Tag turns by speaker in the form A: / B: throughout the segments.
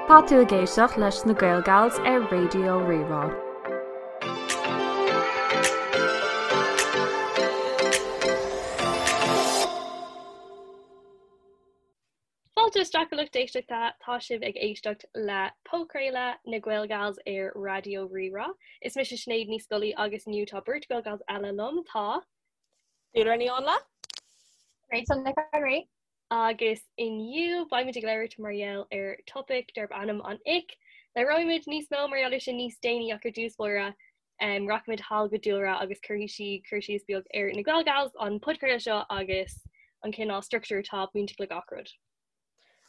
A: Tá tú ag éisteacht leis na Gaelgals ar Raidió Rí-Rá.
B: Fáilte isteach a lucht éisteachta, tá sibh ag éisteacht le podchraoladh na Gaelgals ar Raidió Rí-Rá. Is mise Sinéad Ní Scolaí agus inniu tá beirt Gaelgals eile liom, tá.
C: Dúlra Ní Áinle.
D: Rachel Nic an Rí.
B: Agus inniu beimid ag labhairt mar gheall ar topaic darb ainm an ick. Labhróimid níos mó mar gheall air sin níos déanaí ach ar dtús báire rachaimid thall go Dúlra agus cuirfidh sí cur síos beag ar na Gaelgals, an podchraoladh seo agus an cineál struchtúr atá bainteach le gach rud.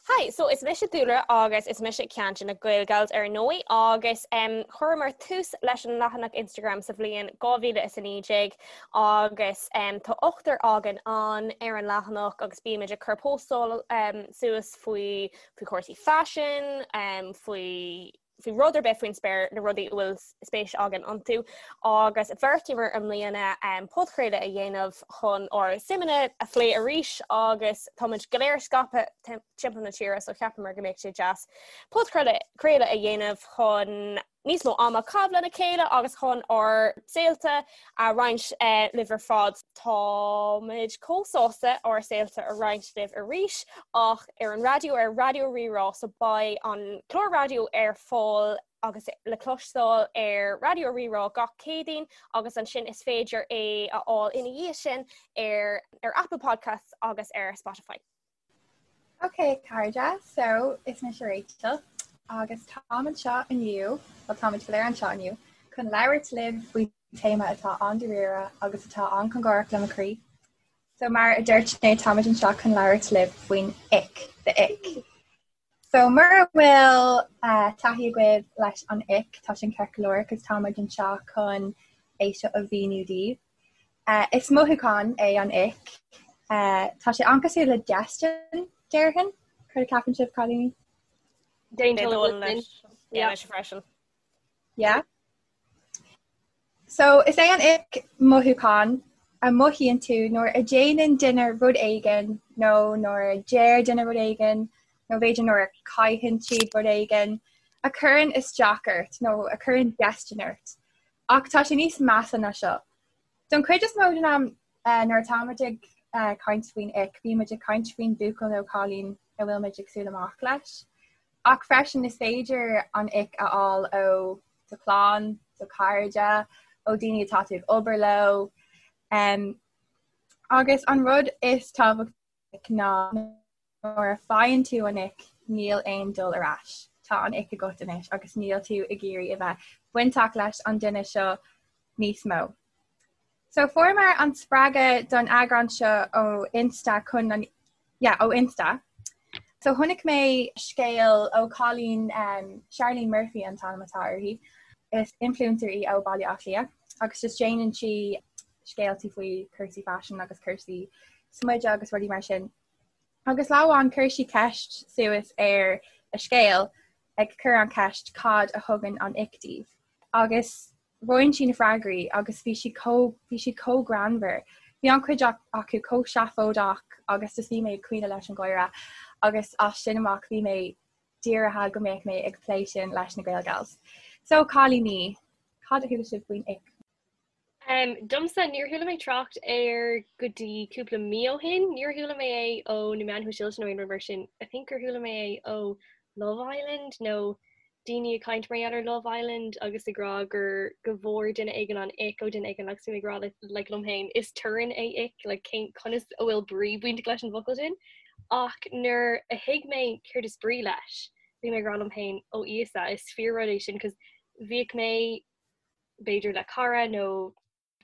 C: Hi, so is mise Dúlra agus is mise ceann de na Gaelgals ar ndóigh agus um, chuireamar tús leis an leathanach Instagram sa bhliain 2019 agus um, tá ochtar againn ann ar an leathanach agus bímid ag cur postáil um, suas faoi faoi chúrsaí faisin, um, faoi faoi rud ar bith faoin spéir na rudaí a bhfuil spéis againn iontu agus bheartaíomar i mbliana um, podchraoladh a dhéanamh chun ár suimeanna a phlé arís agus táimid go léir scaipthe timpeall na tíre so cheapamar go mbeadh sé deas podchraoladh a dhéanamh chun níos mó ama a chaitheamh lena chéile agus chun ár saolta a roinnt libh ar fad. Táimid chomh sásta ár saolta a roinnt libh arís ach ar an raidió ar Raidió Rí-Rá so beidh an clár raidió ar fáil agus le cloisteáil ar Raidió Rí-Rá gach Céadaoin agus ansin is féidir é a fháil ina dhiaidh sin ar ar Apple Podcasts agus ar Spotify.
D: Ok cairde, so is mise Rachel agus táim anseo inniu, bhuel táimid go léir anseo inniu, chun labhairt libh faoi téama atá an-dáiríre agus atá an-chóngarach le mo chroí. So mar a dúirt Sinéad, táimid anseo chun labhairt libh faoin ick, the ick. So mura bhfuil taithí agaibh leis an ick, tá sin ceart go leor, cos táimid anseo chun é seo a mhíniú daoibh. Is mothúchán é an ick. Tá sé an-cosúil le déistin, déarfainn. Céard a cheapann sibh, cailíní?
B: D'aontóinn leis.
C: Yeah, mise freisin.
D: Yeah. So, is é an ick mothúchán a mothaíonn tú nuair a déanann duine rud éigin nó nuair a deir duine rud éigin nó b'fhéidir nuair a caitheann siad rud éigin a chuireann isteach ort nó a chuireann déistin ort. Ach tá sé níos measa ná seo. Don chuid is mó den am nuair atáimid ag caint faoin ick, bímid ag caint faoin buachaill nó cailín a bhfuilimid ag súil amach leis. Ach freisin is féidir an ick a fháil ó do chlann, do chairde, ó daoine atá tú ag obair leo. Agus an rud is tábhachtaí ná nuair a faigheann tú an ick níl aon dul ar ais. Tá an ick agat anois agus níl tú ag iarraidh a bheith bainteach leis an duine seo níos mó. So fuaireamar an spreagadh don eagrán seo ó Insta chun an yeah, ó Insta. So chonaic mé scéal ó cailín um, Charlene Murphy an t-ainm atá uirthi. Is influencer í ó Baile Átha Cliath agus just déanann sí scéaltaí faoi cúrsaí faisin agus cúrsaí smididh agus rudaí mar sin. Agus lá amháin chuir sí ceist suas ar a scéal ag cur an cheist cad a thugann an ick daoibh. Agus roinn sí na freagraí agus bhí siad chomh bhí siad chomh greannmhar. Bhí an-chuid acu chomh seafóideach agus just bhí mé ag caoineadh leis an gháire agus as sin amach bhí mé dírithe go mbeadh mé ag plé sin leis na Gaelgals. So cailíní, cad a chuala sibh faoin ick?
B: Um, domsa, níor chuala mé trácht air go dtí cúpla mí ó shin. Níor chuala mé é ó na meáin shóisialta nó aon rud mar sin. I think gur chuala mé é ó Love Island nó daoine ag caint mar gheall ar Love Island agus ag rá gur go bhfuair duine éigin an ick ó duine éigin agus bhí mé ag rá le, like, liom féin is torann é ick, like, cén conas a bhfuil brí bainteach leis an bhfocal sin. Ach nuair a thuig mé céard is brí leis, bhí mé ag rá liom féin ó Íosa, is fíor rud é sin 'cause bhíodh mé b'fhéidir le cara nó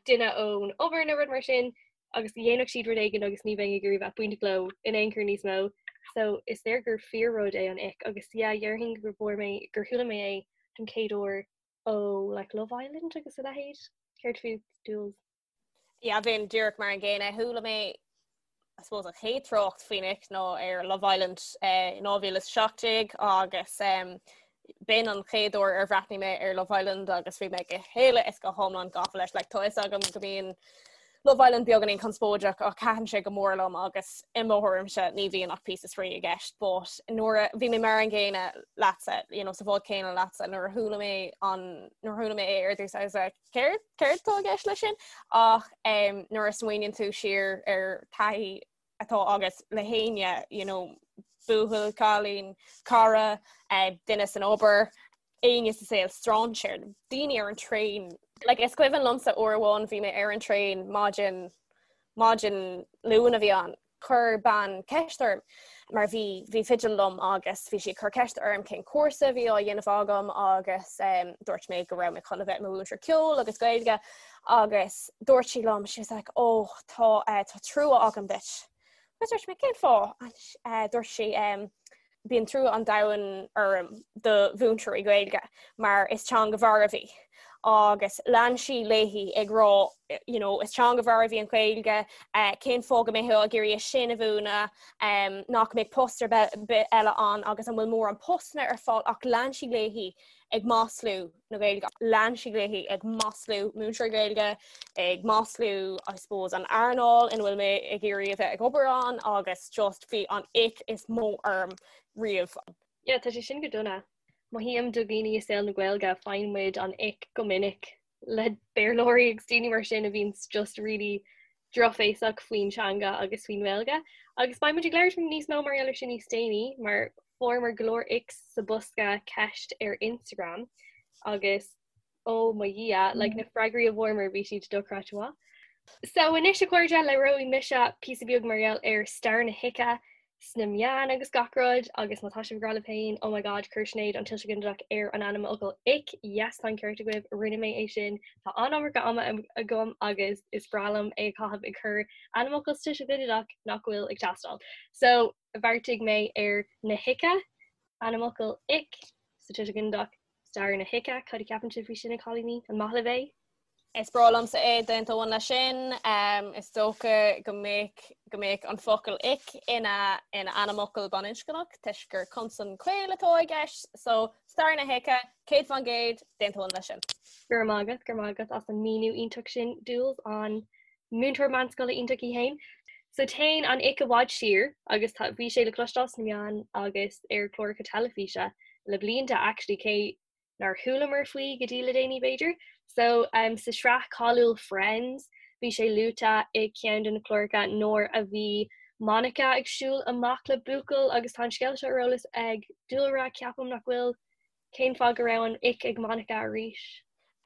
B: duine ón obair nó rud mar sin agus dhéanfadh siad rud éigin agus ní bheinn ag iarraidh bheith bainteach leo in aon chor níos mó. So is léir gur fíor rud é an ick agus yeah déarfainn gur bhfuair mé gur chuala mé é don chéad uair ó like Love Island agus a leithéid. Céard fút Jules?
C: Yeah, bheinn díreach mar an gcéanna. Chuala mé I suppose an chéad trácht faoin ick ná ar Love Island eh, in 2017 agus um, b'in an chéad uair ar bhreathnaigh mé ar Love Island agus bhí mé go huile is go hiomlán gafa leis. Like, tá fhios agam go mbíonn. Love Island beagáinín conspóideach ach thaitin sé go mór liom agus i mo thuairimse ní bhíonn ach píosa spraoi i gceist but nuair a bhí mé mar an gcéanna leatsa, you know, sa bhád céanna leatsa nuair a chuala mé an nuair a chuala mé é ar dtús I was like céard céard atá i gceist leis sin ach um, nuair a smaoiníonn tú siar ar taithí atá agat le héinne, you know, buachaill, cailín, cara, eh, duine san obair, éinne sa saol, strainséir, daoine ar an traein. Like, is cuimhin liomsa uair amháin bhí mé ar an traein maidin maidin Luain a bhí ann. Chuir bean ceist orm mar bhí bhí fidil liom agus bhí sí ag cur ceist orm cén cúrsa a bhí á dhéanamh agam agus um, dúirt mé go raibh mé chun a bheith i mo mhúinteoir ceoil agus Gaeilge agus dúirt sí liom she was like oh tá uh, tá trua agam duit. Agus dúirt mé cén fáth? Uh, dúirt sí um, bíonn trua an domhain orm do mhúinteoirí Gaeilge mar is teanga mharbh í. Agus lean sí léi ag rá you know, is teanga mharbh í an Ghaeilge, uh, cén fáth go mbeifeá ag iarraidh é sin a mhúineadh, um, nach mbeidh post ar bith eile ann agus an bhfuil mórán postanna ar fáil ach lean sí léi ag maslú na Gaeilge. Lean sí léi ag maslú múinteoirí Gaeilge, ag maslú I suppose an earnáil ina bhfuil mé ag iarraidh a bheith ag obair ann agus just bhí an ick is mó orm riamh.
B: Yeah, tá sé sin go dona. Mothaím do dhaoine i saol na Gaeilge, faigheann muid an ick go minic le Béarlóirí agus daoine mar sin a bhíonns just really drochbhéasach faoin teanga agus faoin nGaeilge. Agus beidh muid ag labhairt níos mó mar gheall ar sin níos déanaí, mar fuaireamar go leor icks sa bosca ceist ar Instagram agus ó mo Dhia, like na freagraí a bhfuaireamar bhí siad dochreidte maith. So anois a chairde, labhróidh mise píosa beag mar gheall ar stair na hice sna meáin agus gach rud agus má tá sibh ag rá libh féin oh my god chuir Sinéad an tuiseal ginideach ar an ainmfhocal ick, yes tá an ceart agaibh, rinne mé é sin, tá an-iomarca ama agam agus is breá liom é a chaitheamh ag cur ainmfhocal sa tuiseal ginideach nach bhfuil ag teastáil. So bheartaigh mé ar na hice, ainmfhocal ick sa tuiseal ginideach, Stair na hice, cad a cheapann sibh faoi sin a chailíní? An maith libh é?
C: Is breá liomsa é, d'aontóinn leis sin. Is dócha go mbeadh go mbeadh an focal ick ina ina ainmfhocal baininscneach toisc gur consan caol atá i gceist. So, stair na hice, 100%, d'aontóinn leis sin.
B: Go raibh maith agat, go raibh maith agat as an míniú iontach sin, Dúls, an múinteoir meánscoile iontach í féin. So téann an ick i bhfad siar agus tá, bhí sé le cloisteáil sna meáin agus ar chláracha teilifíse le blianta actually cé nár chualamar faoi go dtí le déanaí b'fhéidir. So um, sa sraith cáiliúil Friends bhí sé luaite i ceann de na cláracha nuair a bhí Monica ag siúl amach le buachaill agus tá an scéal seo ar eolas ag Dúlra ceapaim nach bhfuil Cén fáth go raibh an ick ag Monica arís?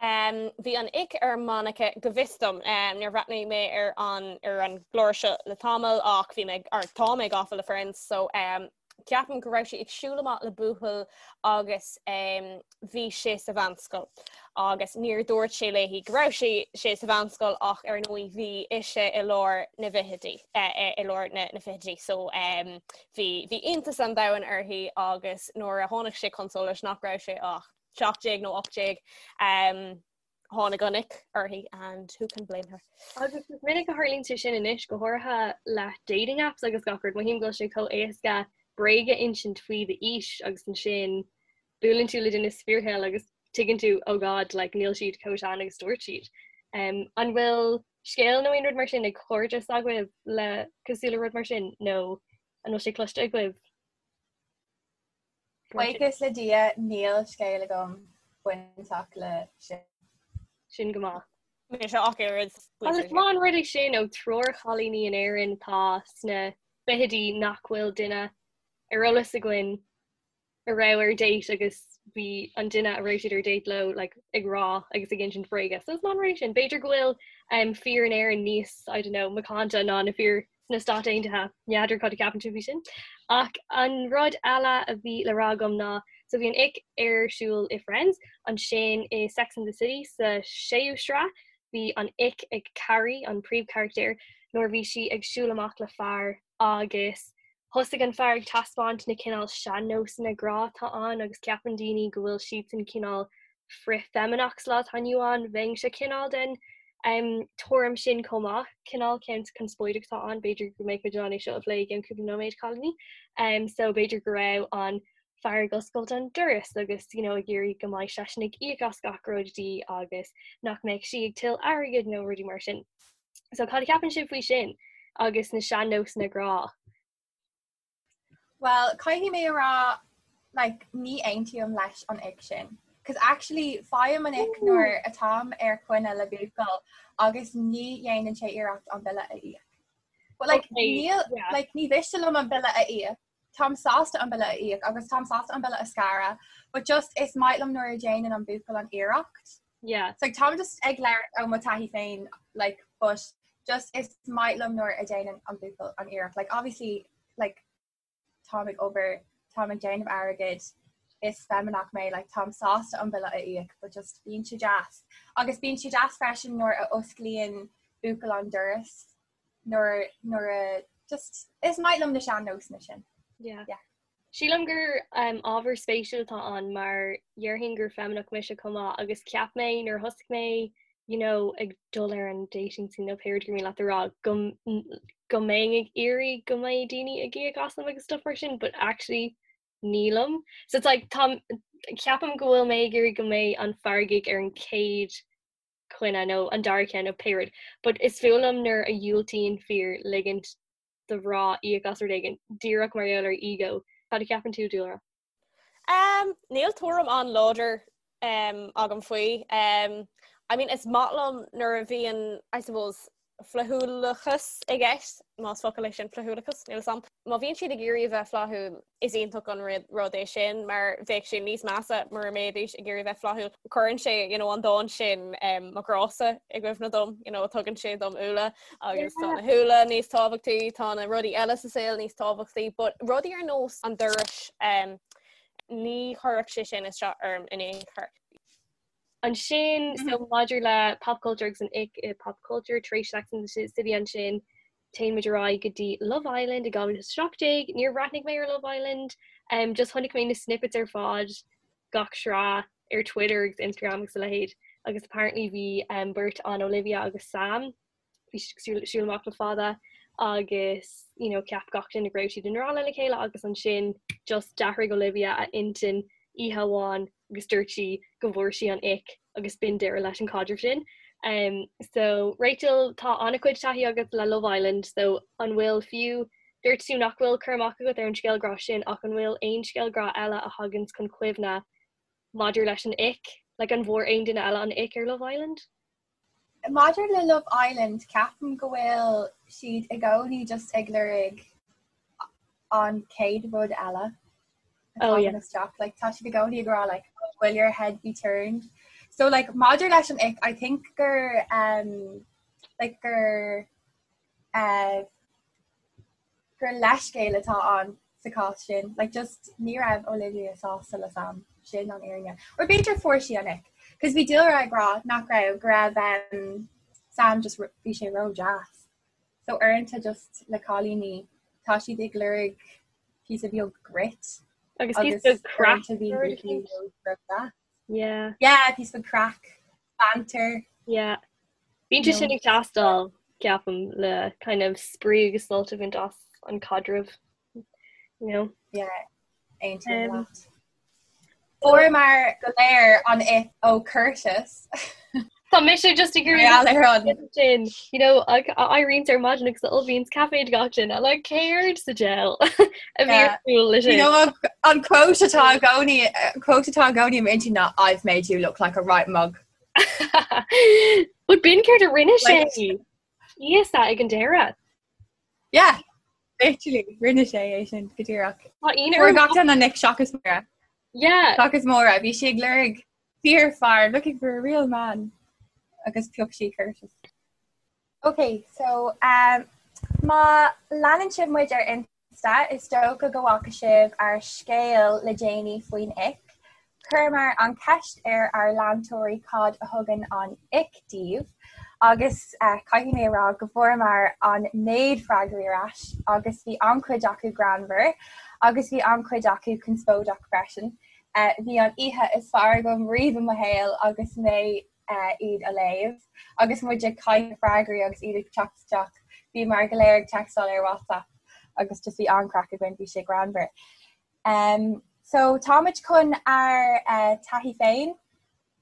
C: Bhí an ick ar Monica go bhfios dom. Níor bhreathnaigh mé ar an ar an gclár seo le tamall ach bhí mé or tá mé gafa le Friends so ceapaim go raibh sí ag siúl amach le buachaill agus bhí sé sa mheánscoil agus níor dúirt sé léi go raibh sé sé sa mheánscoil ach ar ndóigh bhí ise i lár na bhfichidí i lár na na fichidí so Bhí bhí iontas an domhain uirthi agus nuair a tháinig sé chun solais nach raibh sé ach 17 nó 18 um, tháinig an ick uirthi and who can blame her.
B: Agus is minic a tharlaíonn sé sin anois go háirithe le dating apps agus gach rud, mothaím go bhfuil sé chomh éasca bréag a insint faoi d'aois agus ansin buaileann tú le duine sa fíorshaol agus tuigeann tú oh god like níl siad chomh sean agus dúirt siad. Um, an bhfuil scéal nó aon rud mar sin ag cairde s'agaibh le cosúil le rud mar sin nó an bhfuil sé cloiste agaibh?
D: Buíochas le Dia níl scéal agam bainteach le sin.
B: Sin go maith.
C: Mise ach oiread.
B: Agus is maith an rud é sin ó triúr chailíní in Éirinn atá sna fichidí nach bhfuil duine ar eolas againn a raibh ar date agus bhí an duine a raibh siad ar date leo like, ag rá agus ag insint bréige. So is maith an rud é sin. B'fhéidir go bhfuil um, fir in Éirinn níos, I don't know, macánta ná na fir sna Stáit Aontaithe. N'fheadar cad a ceapann tú faoi sin. Ach an rud eile a bhí le rá agam ná so bhí an ick ar siúl i Friends, ansin i Sex and the City sa séú sraith, bhí an ick ag Carrie, an príomhcharachtar, nuair a bhí sí ag siúl amach le fear agus Thosaigh an fear ag taispeáint na cineál sean-nósanna grá atá ann agus ceapann daoine go bhfuil siadsan cineál frith-fheimineach sa lá atá inniu ann. Bheinnse cineál den tuairim sin chomh maith. Cineál ceann conspóideach atá ann, b'fhéidir go mbeidh muid in ann é seo a phlé i gceann cúpla nóiméad, cailíní. So b'fhéidir go raibh an fear ag oscailt an doras agus you know ag iarraidh go mbeidh seisean ag íoc as gach rud di agus nach mbeadh sí ag tuilleamh airgid nó rudaí mar sin. So cad a cheapann sibh faoi sin agus na sean-nósanna grá?
D: Well, caithfidh mé a rá like, ní aontaím leis an ick sin. Cos actually faighim an ick nuair atáim ar choinne le buachaill agus ní dhéanann sé iarracht an bille a íoc. But like, okay, níl, yeah. like, ní mhiste liom an bille a íoc. Táim sásta an bille a íoc agus táim sásta an bille a scaradh, but just is maith liom nuair a dhéanann an buachaill an iarracht.
B: Yeah.
D: So like, táim just ag labhairt ó mo taithí féin like, but just is maith liom nuair a dhéanann an buachaill an iarracht. Like, obviously, like, táim ag obair, táim ag déanamh airgid, is feimineach mé, like, táim sásta an bille a íoc, but just bíonn sé deas. Agus bíonn sé deas freisin nuair a osclaíonn buachaill an doras nuair nuair a just is maith liom na sean-nósanna sin.
B: Yeah. Yeah. Sílim gur um, ábhar spéisiúil atá ann mar dhéarfainn gur feimineach mise chomh maith agus cheap mé nuair a thosaigh mé you know, ag dul ar an dating scene nó pé rud gur mian leat a rá go go mbeinn ag iarraidh go mbeidh daoine ag íoc asam agus stuff mar sin, but actually nílim. So it's like tá ceapaim go bhfuil mé ag iarraidh go mbeidh an fear ag íoc ar an chéad choinne nó an dara ceann nó pé rud. But is fuath liom nuair a dhiúltaíonn fir ligint do mhná íoc as rud éigin díreach mar gheall ar ego. Cad a cheapann tú, Dúlra?
C: Um, níl tuairim an-láidir um, agam faoi. Um, I mean, is maith liom nuair a bhíonn, I suppose, flaithiúlachas i gceist, más focal é sin flaithiúlachas, níl a fhios a'm. Má bhíonn siad ag iarraidh a bheith flaithiúil, is iontach an rud é sin, mar bheadh sé níos measa mura mbeidís ag iarraidh bheith flaithiúil. Cuireann sé you know, an dán sin um, mo ghrása i gcuimhne dom, you know, tugann sé dom úlla agus tá na húlla níos tábhachtaí, tá na rudaí eile sa saol níos tábhachtaí, but rudaí ar nós an dorais um, ní chuirfeadh sé sin isteach orm in aon chor.
B: Ansin so maidir le pop culture agus an ick i pop culture tar éis Sex and the City ansin téann muid ar aghaidh go dtí Love Island i 2017. Níor bhreathnaigh mé ar Love Island, um, just chonaic mé na snippets ar fad gach sraith ar Twitter agus Instagram agus a leithéid agus apparently bhí um, beirt ann Olivia agus Sam bhí siad ag siúl amach le fada agus you know, cheap gach duine go raibh siad i ngrá lena chéile agus ansin just d'athraigh Olivia a intinn oíche amháin agus dúirt sí go bhfuair sí an ick agus b'in deireadh leis an caidreamh sin. Um, so Rachel tá an-chuid taithí agat le Love Island, so an bhfuil fiú dúirt tú nach bhfuil cur amach agat ar an scéal grá sin ach an bhfuil aon scéal grá eile a thagann chun cuimhne maidir leis an ick? Like an bhfuair aon duine eile an ick ar Love Island?
D: Maidir le Love Island, ceapaim go bhfuil siad i gcónaí just ag lorg an chéad rud eile atá
B: Oh, yeah.
D: isteach. Like, tá siad i gcónaí ag rá like, oh, will your head be turned? So like, maidir leis an ick, I think gur um, like gur uh, gur leithscéal atá ann sa chás sin. Like just ní raibh Olivia sásta le Sam. Sin an fhírinne. Or b'fhéidir fuair sí an ick. Cos bhí Dúlra ag rá nach raibh go raibh um, Sam just bhí sé ró-deas. So uaireanta just le cailíní tá siad ag lorg píosa beag grit.
B: Agus píosa beag craic.
D: uaireanta bhí buachaillí ró-deas.
B: Yeah.
D: Yeah, píosa beag craic, banter.
B: Yeah. Bíonn sé sin ag teastáil, ceapaim, le kind of spraoi agus sult a bhaint as an caidreamh, you know?
D: Yeah, aontaím um, leat. Fuaireamar go léir an ick ó Curtis.
B: Tá mise just ag iarraidh sin, you know, éiríonn ar maidin agus ullmhaíonn caife do gach duine, like céard sa diabhal a bhí ar siúl leis
D: sin. You know, an quote atá i gcónaí, quote atá i gcónaí i m'intinn ná I've made you look like a right mug.
B: But b'in céard a rinne sé Íosa ag an deireadh.
D: Yeah, literally, rinne sé é sin go díreach.
B: Tá ionadh
D: Fuair gach duine an ick seachas Máire.
B: Yeah.
D: Seachas Máire, bhí sí ag lorg fíorfhear, looking for a real man. Agus phioc sí Curtis. Ok, so um, má leanann sibh muid ar Insta, is dócha go bhfaca sibh ár scéal le déanaí faoin ick. Chuireamar an cheist ar ár leantóirí cad a thugann an ick daoibh, agus uh, caithfidh mé a rá go bhfuaireamar an méid freagraí ar ais agus bhí an-chuid acu greannmhar agus bhí an-chuid acu conspóideach freisin. Uh, bhí an oíche is fearr agam riamh i mo shaol agus mé uh, iad a léamh agus muid ag caitheamh freagraí agus iad ag teacht isteach. Bhíomar go léir ag textáil ar WhatsApp agus just bhí an-chraic againn, bhí sé greannmhar. Um, so táimid chun ár uh, taithí féin.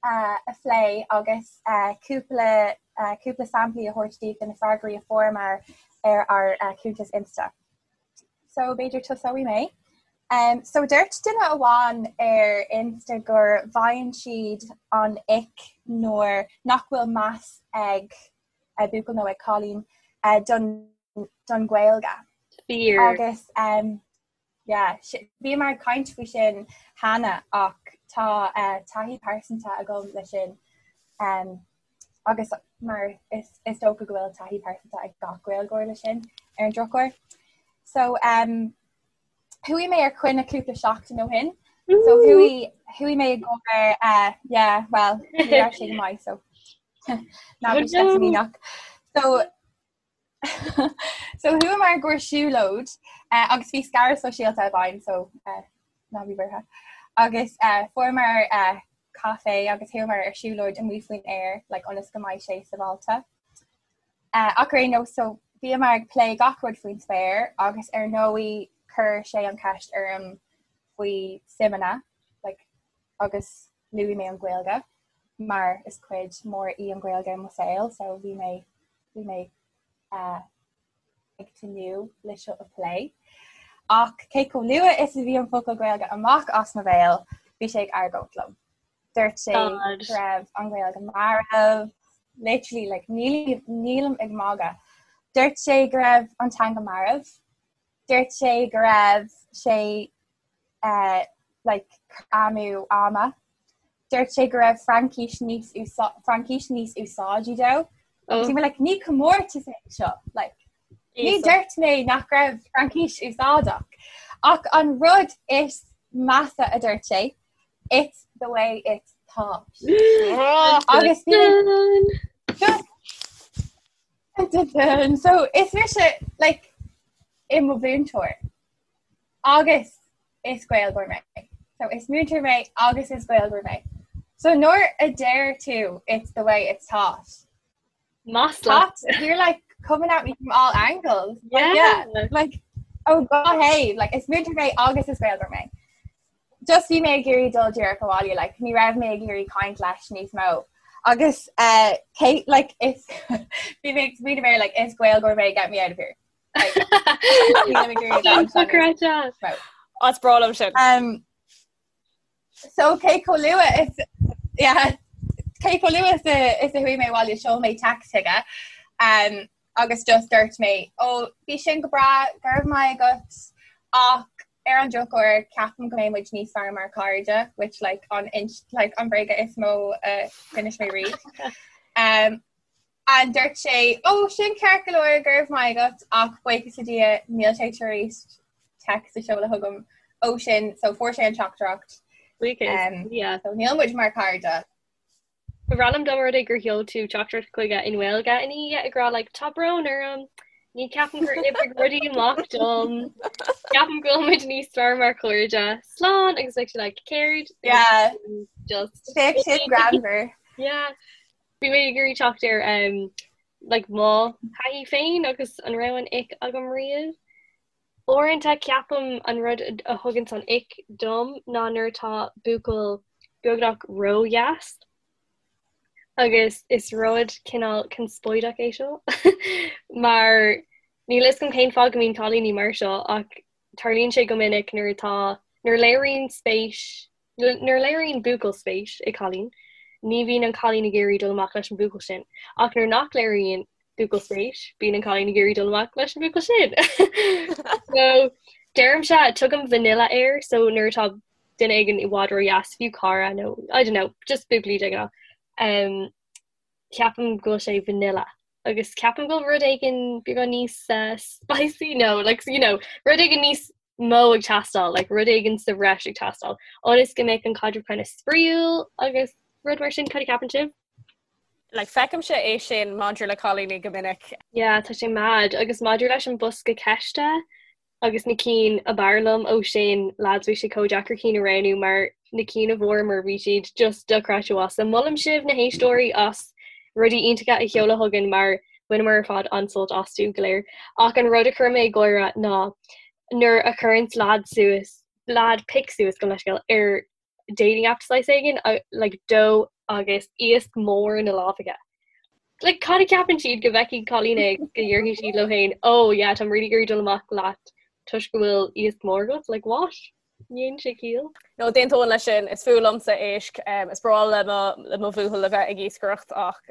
D: a phlé agus cúpla cúpla samplaí a thabhairt daoibh de na freagraí a fuaireamar ar ár cuntas Insta. So b'fhéidir tosóidh mé. Um, so dúirt duine amháin ar Insta gur bhfaigheann siad an ick nuair nach bhfuil meas ag buachaill nó ag cailín uh, don, don Ghaeilge.
B: Fíor.
D: Agus um, yeah, bhíomar ag caint faoi sin cheana ach tá uh, taithí pearsanta agam le sin. Um, agus mar is, is dócha go bhfuil taithí pearsanta ag gach Gaeilgeoir le sin ar an drochuair. So um, Chuaigh mé ar coinne cúpla seachtain ó shin. So chuaigh chuaigh mé i gcomhair uh, yeah, well, ní raibh sé go maith so ná bí sceitimíneach. So so chuamar i gcomhair siúlóid uh, agus bhí scaradh sóisialta i bhfeidhm so uh, ná bí buartha. Agus uh, fuaireamar uh, caife agus chuamar ar siúlóid amuigh faoin aer like, ionas go mbeidh sé sábháilte. Ach ar aon nós, so bhíomar ag plé gach rud faoin spéir agus ar ndóigh chuir sé an cheist orm faoi suimeanna like, agus luaigh mé an Ghaeilge mar is cuid mór í an Ghaeilge i mo saol so bhí mé bhí mé uh, ag tnúth le seo a phlé. Ach cé chomh luath is a bhí an focal Gaeilge amach as mo bhéal, bhí sé ag argóint liom. Dúirt sé go raibh an Ghaeilge marbh, literally like nílim ag magadh. Dúirt sé go raibh an teanga marbh. Dúirt sé go raibh sé uh, like amú ama. Dúirt sé go raibh Fraincis níos Fraincis níos úsáidí dó. Oh. Bhí mé like ní comórtas é seo like ní dúirt mé nach raibh Fraincis úsáideach. Ach an rud is measa a dúirt sé It's the way it's taught. Agus just so is mise like i mo mhúinteoir agus is Gaeilgeoir mé. So is múinteoir mé agus is Gaeilgeoir mé. So nuair a deir tú it's the way it's taught.
B: Masla.
D: You're like coming at me from all angles. Like, yeah. yeah. Like oh god hey, like is múinteoir mé agus is Gaeilgeoir mé. Just bhí mé ag iarraidh dul díreach abhaile, like ní raibh mé ag iarraidh caint leis níos mó. Agus uh, Kate, like is bhí mé ag smaoineamh air, like is Gaeilgeoir mé get me out of here. Like, nílim ag iarraidh dul
B: níos
D: mó.
C: As breá liom sin.
D: Um, So cé chomh luath is yeah, cé chomh luath is a is a chuaigh mé abhaile sheol mé text chuige um, agus just dúirt mé ó bhí sin go breá go raibh maith agat ach ar an drochuair ceapaim go mbeidh muid níos fearr mar chairde which like an like an bréaga is mó a d'inis mé riamh. Um, and dúirt sé ó sin ceart go leor go raibh maith agat ach buíochas le Dia níl sé tar éis text a sheoladh chugam ó sin so fuair sé an teachtaireacht.
B: Um, yeah.
D: So níl muid mar chairde.
B: Ba bhreá liom dá mba rud é gur sheol tú teachtaireacht chuige i nGaeilge ina dhiaidh ag rá like tá brón orm, ní ceapaim gur oibrigh rudaí amach dom, ceapaim go bhfuil muid níos fearr mar chairde, slán agus bheadh sé like céard?
D: Yeah.
B: Just
D: Bheadh sin greannmhar.
B: Yeah. Bhí mé ag iarraidh teacht ar um, like mo thaithí féin agus an raibh an ick agam riamh. Uaireanta ceapaim an rud a thuganns an ick dom ná nuair atá buachaill beagnach ródheas agus is rud cineál conspóideach é seo mar níl a fhios agam cén fáth go mbíonn cailíní mar seo ach tarlaíonn sé go minic nuair atá nuair a léiríonn spéis Nuair a léiríonn buachaill spéis i gcailín, ní bhíonn an cailín ag iarraidh dul amach leis an bhuachaill sin, ach nuair nach léiríonn buachaill spéis, bíonn an cailín ag iarraidh dul amach leis an bhuachaill sin. So, deirimse, tugaim vanilla air, so nuair atá duine éigin i bhfad ródheas, fiú cara nó, I don't know, just buachaillí de ghnáth, um, ceapaim go bhfuil sé vanilla. Agus ceapaim go bhfuil rud éigin beagán níos uh, spicy, no, like, you know, rud éigin níos mó ag teastáil, like, rud éigin sa bhreis ag teastáil, ionas go mbeadh an caidreamh kind of spraíúil agus rud mar sin, cad a cheapann sibh?
C: Like, feicimse é sin maidir le cailíní go minic.
B: Yeah, tá sé mad. Agus maidir leis an bosca ceiste agus na cinn ab fhearr liom ó sin, lads, bhí sé chomh deacair cinn a roghnú mar na cinn a bhfuaireamar bhí siad just dochreidte mhaith. So molaim sibh na héisteoirí as rudaí iontacha a sheoladh chugainn mar bhaineamar ar fad an-sult astu go léir. Ach an rud a chuir mé ag gáire ná nuair a chuireanns leaid suas, leaid pic suas gabh mo leithscéal ar dating app saghas éigin, like dó agus iasc mór ina lámh aige. Like, cad a cheapann siad go bhfeicfidh cailín é go ndéarfaidh siad leo féin, oh yeah, táim really ag iarraidh dul amach leat toisc go bhfuil iasc mór agat, like what? Ní dhéanann sé ciall.
C: No, d'aontóinn leis sin, is fuath liomsa éisc, is breá le mo le mo bhuachaill a bheith ag iascaireacht ach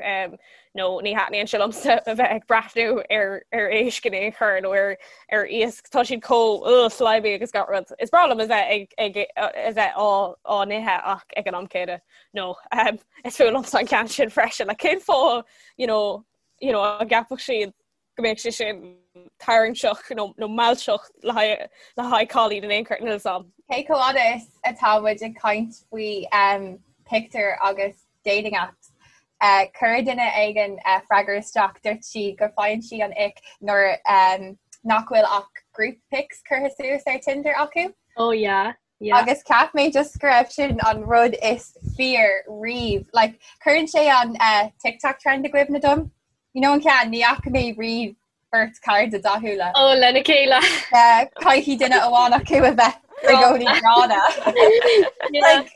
C: no, ní thaitníonn sé liomsa a bheith ag breathnú ar ar éisc in aon chor nó ar ar iasc, tá siad chomh ugh, slimy agus gach rud. Is breá liom a bheith ag ag a bheith á á n-ithe ach ag an am céanna, no, is fuath liomsa an ceann sin freisin, like cén fáth, you know, you know, an gceapfadh siad go mbeadh sé sin tarraingteach nó nó mealltach le haghaidh le haghaidh cailín in aon chor níl a fhios a'm.
D: Cé chomh fhada is atá muid ag caint faoi um, pictiúir agus dating apps, uh, chuir duine éigin uh, freagra isteach dúirt sí go faigheann sí an ick nuair um, nach bhfuil ach group pics curtha suas ar Tinder acu.
B: Oh yeah. Yeah.
D: Agus cheap mé just go raibh sin an rud is fíor riamh. Like, cuireann sé an uh, TikTok trend i gcuimhne dom. You know an ceann, ní fhaca mé riamh beirt cairde dathúla.
B: Ó, lena chéile.
D: Caithfidh duine amháin acu a bheith i gcónaí gránna. Like,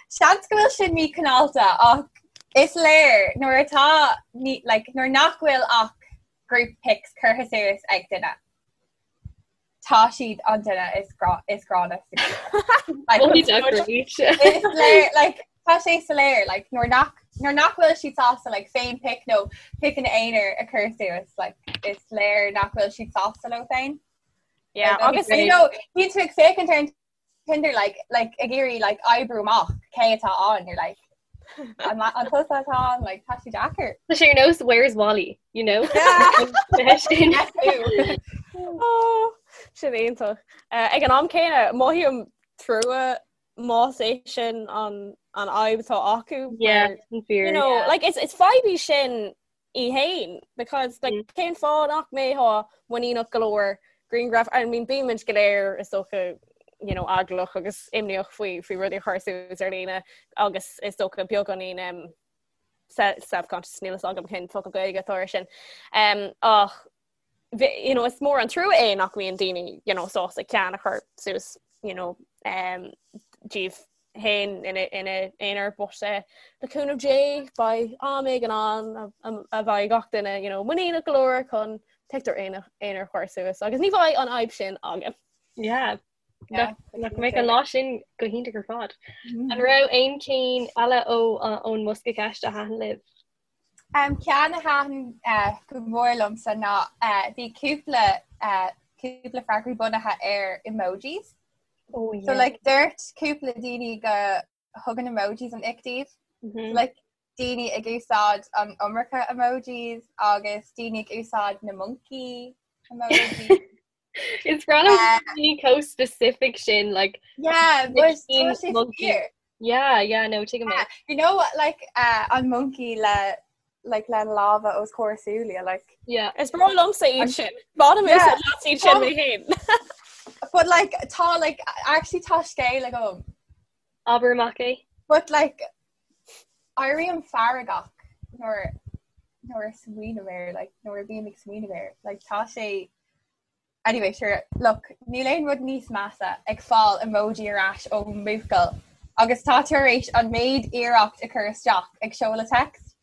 D: seans go bhfuil sin míchineálta ach is léir nuair atá ní, like, nuair nach bhfuil ach group pics curtha suas ag duine. Tá siad an duine is grá is gránna sa grúpa. Like, is léir, like, tá sé soiléir, like, nuair nach nuair nach bhfuil siad sásta like, féin pic nó piceanna aonair a chur suas, like, is léir nach bhfuil siad sásta leo féin.
C: Yeah,
D: agus you know, bíonn tú ag féachaint ar an Tinder like like ag iarraidh like oibriú amach cé atá ann you're like an an tusa atá ann like tá sé deacair.
B: Tá sé ar nós Where's Wally, you know?
C: Sin Sin iontach. Eh, ag an am céanna mothaím trua más é sin an an fhadhb atá acu.
B: Yeah,
C: you know, like it's it's fadhb í sin í fhéin because like mm. cén fáth nach mbeifeá muiníneach go leor grianghraf I mean bímid go léir is dócha you know eaglach agus imníoch faoi faoi rudaí a chur suas ar líne agus is dócha beagáinín um, self-conscious níl a fhios agam cén focal Gaeilge atá air sin um, ach you know, is mór an trua é nach mbíonn daoine you know, sásta ceann a chur suas you know, um, díobh féin ina n-aonar but eh, le cúnamh Dé beidh am éigin ann a bheidh gach duine you know, muiníneach go leor chun pictiúr aonair a chur suas agus ní bheidh an fhadhb sin againn.
B: Yeah. Nach mbeidh an lá sin go hiontach ar fad. Mm. An raibh aon cinn eile ó ón mbosca ceiste a thaitin libh?
D: Um, ceann a thaitin uh, go mór liomsa ná uh, bhí cúpla uh, cúpla freagraí bunaithe ar emojis.
B: Oh, yeah.
D: So like dúirt cúpla daoine go thugann emojis an ick dóibh.
B: Mm -hmm.
D: Like daoine ag úsáid an iomarca emojis agus daoine ag úsáid na monkey emojis.
B: Is breá liom daoine chomh specific sin like
D: Yeah, but tá sé fíor.
B: Yeah, yeah, no, tuigim é.
D: You know what, like uh, an monkey le like le lámha os comhair súile like
B: Yeah.
C: Is breá liomsa iad sin. Bainim úsáid as iad sin mé féin.
D: But like tá like actually tá scéal agam.
B: Abair amach é.
D: But like éirím feargach nuair nuair a smaoiním air like nuair a bhím ag smaoineamh air like tá sé Anyway, sure, look, níl aon rud níos measa ag fáil emoji ar ais ó mbuachaill agus tá tú tar éis an méid iarracht a chur isteach ag seoladh text.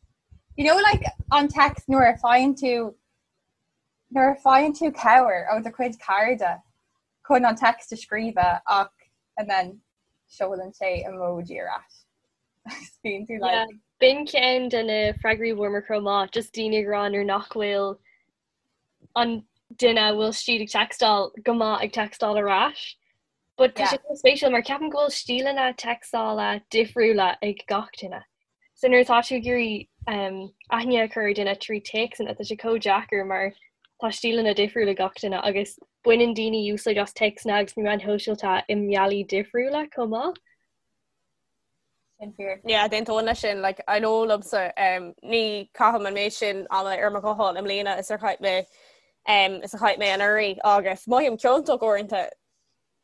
D: You know like an text nuair a faigheann tú nuair a faigheann tú cabhair ó do chuid cairde chun an text a scríobh ach and then seolann sé emoji ar ais. Bíonn tú like
B: Yeah, b'in ceann de na freagraí a bhfuaireamar chomh maith, just daoine ag rá nuair nach bhfuil an duine a bhfuil siad ag textáil go maith ag textáil ar ais. But tá sé chomh spéisiúil mar ceapaim go bhfuil stíleanna textála difriúla ag gach duine. So nuair atá tú ag iarraidh um, aithne a chur ar duine trí téacsanna tá sé chomh deacair mar tá stíleanna difriúla ag gach duine agus baineann daoine úsáid as téacsanna agus na meáin shóisialta i mbealaí difriúla chomh maith.
D: Sin fíor.
C: Yeah, d'aontóinn leis sin, like, I know liomsa, um, ní chaithim an méid sin ama ar mo ghuthán i mbliana is ar chaith mé um, is a chaith mé anuraidh agus mothaím ciontach uaireanta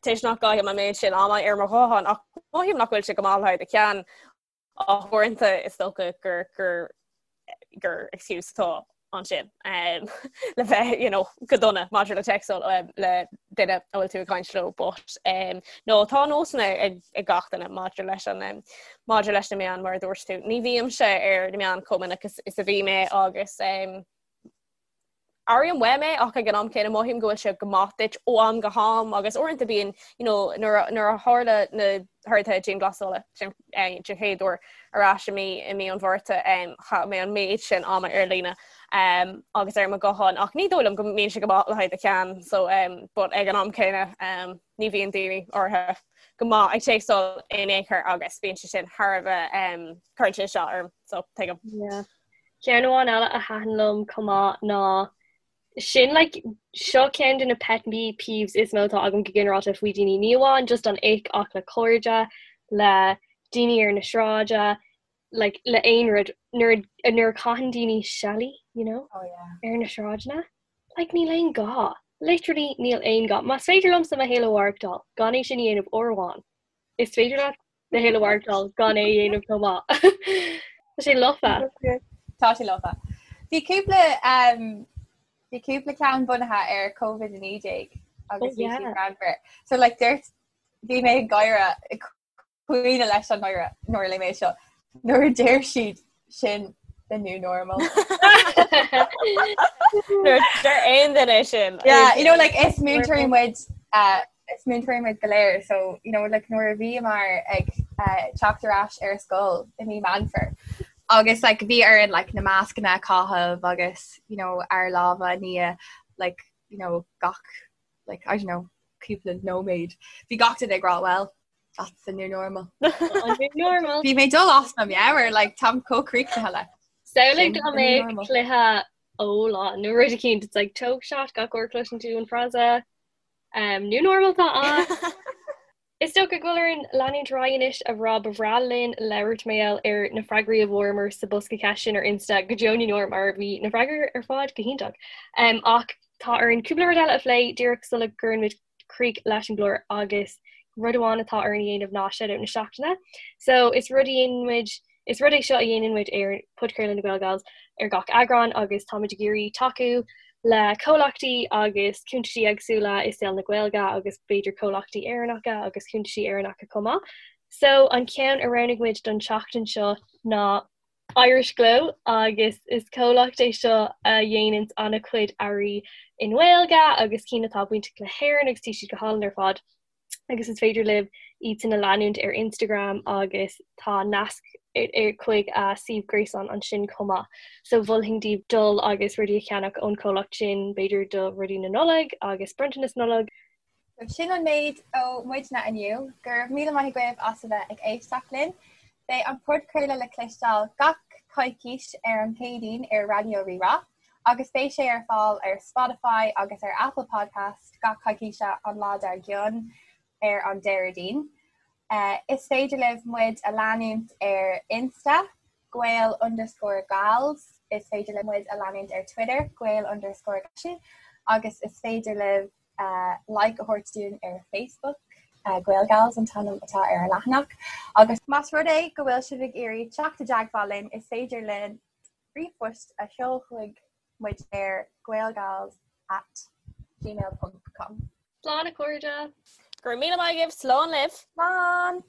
C: toisc nach gcaithim an méid sin ama ar mo ghuthán ach mothaím nach bhfuil sé go maith le haghaidh do cheann ach uaireanta is dócha gur gur gur excuse atá. ansin um, le bheith you know, go dona maidir le téacsáil um, le duine a bhfuil tú ag caint leo but um, no tá nósanna ag, ag gach duine maidir leis an um, maidir leis na meáin mar a dúirt tú. Ní bhímse ar na meáin chomh minic is, is a bhí mé agus um, Airím uaim é ach ag an am céanna mothaím go bhfuil sé go maith duit ó am go ham agus uaireanta bíonn you know, nuair a, nuair a tharla na horduithe dianghlasála den eh, den chéad uair ar ais i mí i mí an Mhárta um, chaith mé an méid sin ama ar líne um, agus ar mo ghuthán ach ní dóigh liom go mbíonn sé go maith le haghaidh do cheann so um, but ag an am céanna um, ní bhíonn daoine áirithe go maith ag téacsáil in aon chor agus bíonn sé sin thar a bheith um, cuireann sé isteach orm so tuigim.
B: Yeah. Ceann amháin eile a thaitin liom chomh maith ná sin like seo ceann de na pet peeves is mó atá agam go ginearálta faoi daoine, ní amháin just an ick ach le cairde, le daoine ar na sráide, like le aon rud nuair nuair a chaitheann daoine seilí, you know,
D: oh, yeah.
B: ar na sráideanna. Like níl aon gá. Literally níl aon gá. Más féidir liomsa mo shaol a mhaireachtáil gan é sin a dhéanamh uair amháin. Is féidir leat do shaol a mhaireachtáil gan é a dhéanamh chomh maith. Tá sé lofa.
D: Tá sé lofa. Bhí cúpla um, bhí cúpla ceann bunaithe ar COVID-19 agus bhí siad greannmhar. So like dúirt bhí mé ag gáire ag caoineadh leis an ngáire nuair a léigh mé seo. Nuair a deir siad sin the new normal.
C: Nuair a deir aon duine sin.
D: Yeah, you know like is múinteoirí muid uh, is múinteoirí muid go léir so you know like nuair a bhíomar ag uh, teacht ar ais ar scoil i mí Meán Fómhair agus like bhí orainn like na mascanna a chaitheamh agus you know ár lámha a ní like you know gach like I don't know cúpla nóiméad bhí gach duine ag rá well that's the new normal.
B: An new normal.
D: Bhí mé dul as mo meabhair like táim chomh críochnaithe le.
B: Samhlaigh dá mbeadh cluiche óláin nó rud eicínt it's like tóg shot gach uair a chloiseann tú an frása um, new normal tá ann. Is dócha go bhfuil orainn leanúint ar aghaidh anois a rá ba bhreá linn labhairt mar gheall ar na freagraí a bhfuaireamar sa bosca ceist sin ar Insta go deo na ndeor mar bhí na freagraí ar fad go hiontach. Um, ach tá orainn cúpla rud eile a phlé díreach sula gcuireann muid críoch leis an gclár agus rud amháin atá orainn a dhéanamh ná shout-out na seachtaine. So is rud a dhéanann muid Is rud é seo a dhéanann muid ar Podchraoladh na GaelGals ar gach eagrán agus táimid ag iarraidh tacú le comhlachtaí agus cuntaisí éagsúla i saol na Gaeilge agus b'fhéidir comhlachtaí Éireannacha agus cuntaisí Éireannacha chomh maith. So an ceann a roghnaigh muid don tseachtain seo ná Irish Glow agus is comhlacht é seo a dhéananns an-chuid earraí i nGaeilge agus cinn atá bainteach le hÉirinn agus tá siad go hálainn ar fad. agus is féidir libh iad sin a leanúint ar Instagram agus tá nasc chuig a suíomh gréasáin ansin chomh maith. So mholfainn daoibh dul agus rudaí a cheannach ón chomhlacht sin, b'fhéidir do rudaí na Nollag agus bronntanas Nollag.
D: So sin an méid ó muidne inniu. Go raibh míle maith agaibh as a bheith ag éisteacht linn. Beidh an podchraoladh le cloisteáil gach coicís ar an Chéadaoin ar Raidió Rí-Rá. agus beidh sé ar fáil ar Spotify agus ar Apple Podcast gach coicíse an lá dár gcionn ar an Déardaoin. Is féidir libh muid a leanúint ar Insta, Gael underscore Gals, is féidir libh muid a leanúint ar Twitter, Gael underscore Gals, agus is féidir libh like a thabhairt dúinn ar Facebook, Gael Gals an t-ainm atá ar an leathanach. Agus más rud é go bhfuil sibh ag iarraidh teacht i dteagmháil linn, is féidir linn ríomhphost a sheol chuig muid ar gaelgals at gmail ponc com.
B: Slán a chairde!
C: Go raibh míle maith agaibh, slán libh!
D: Slán!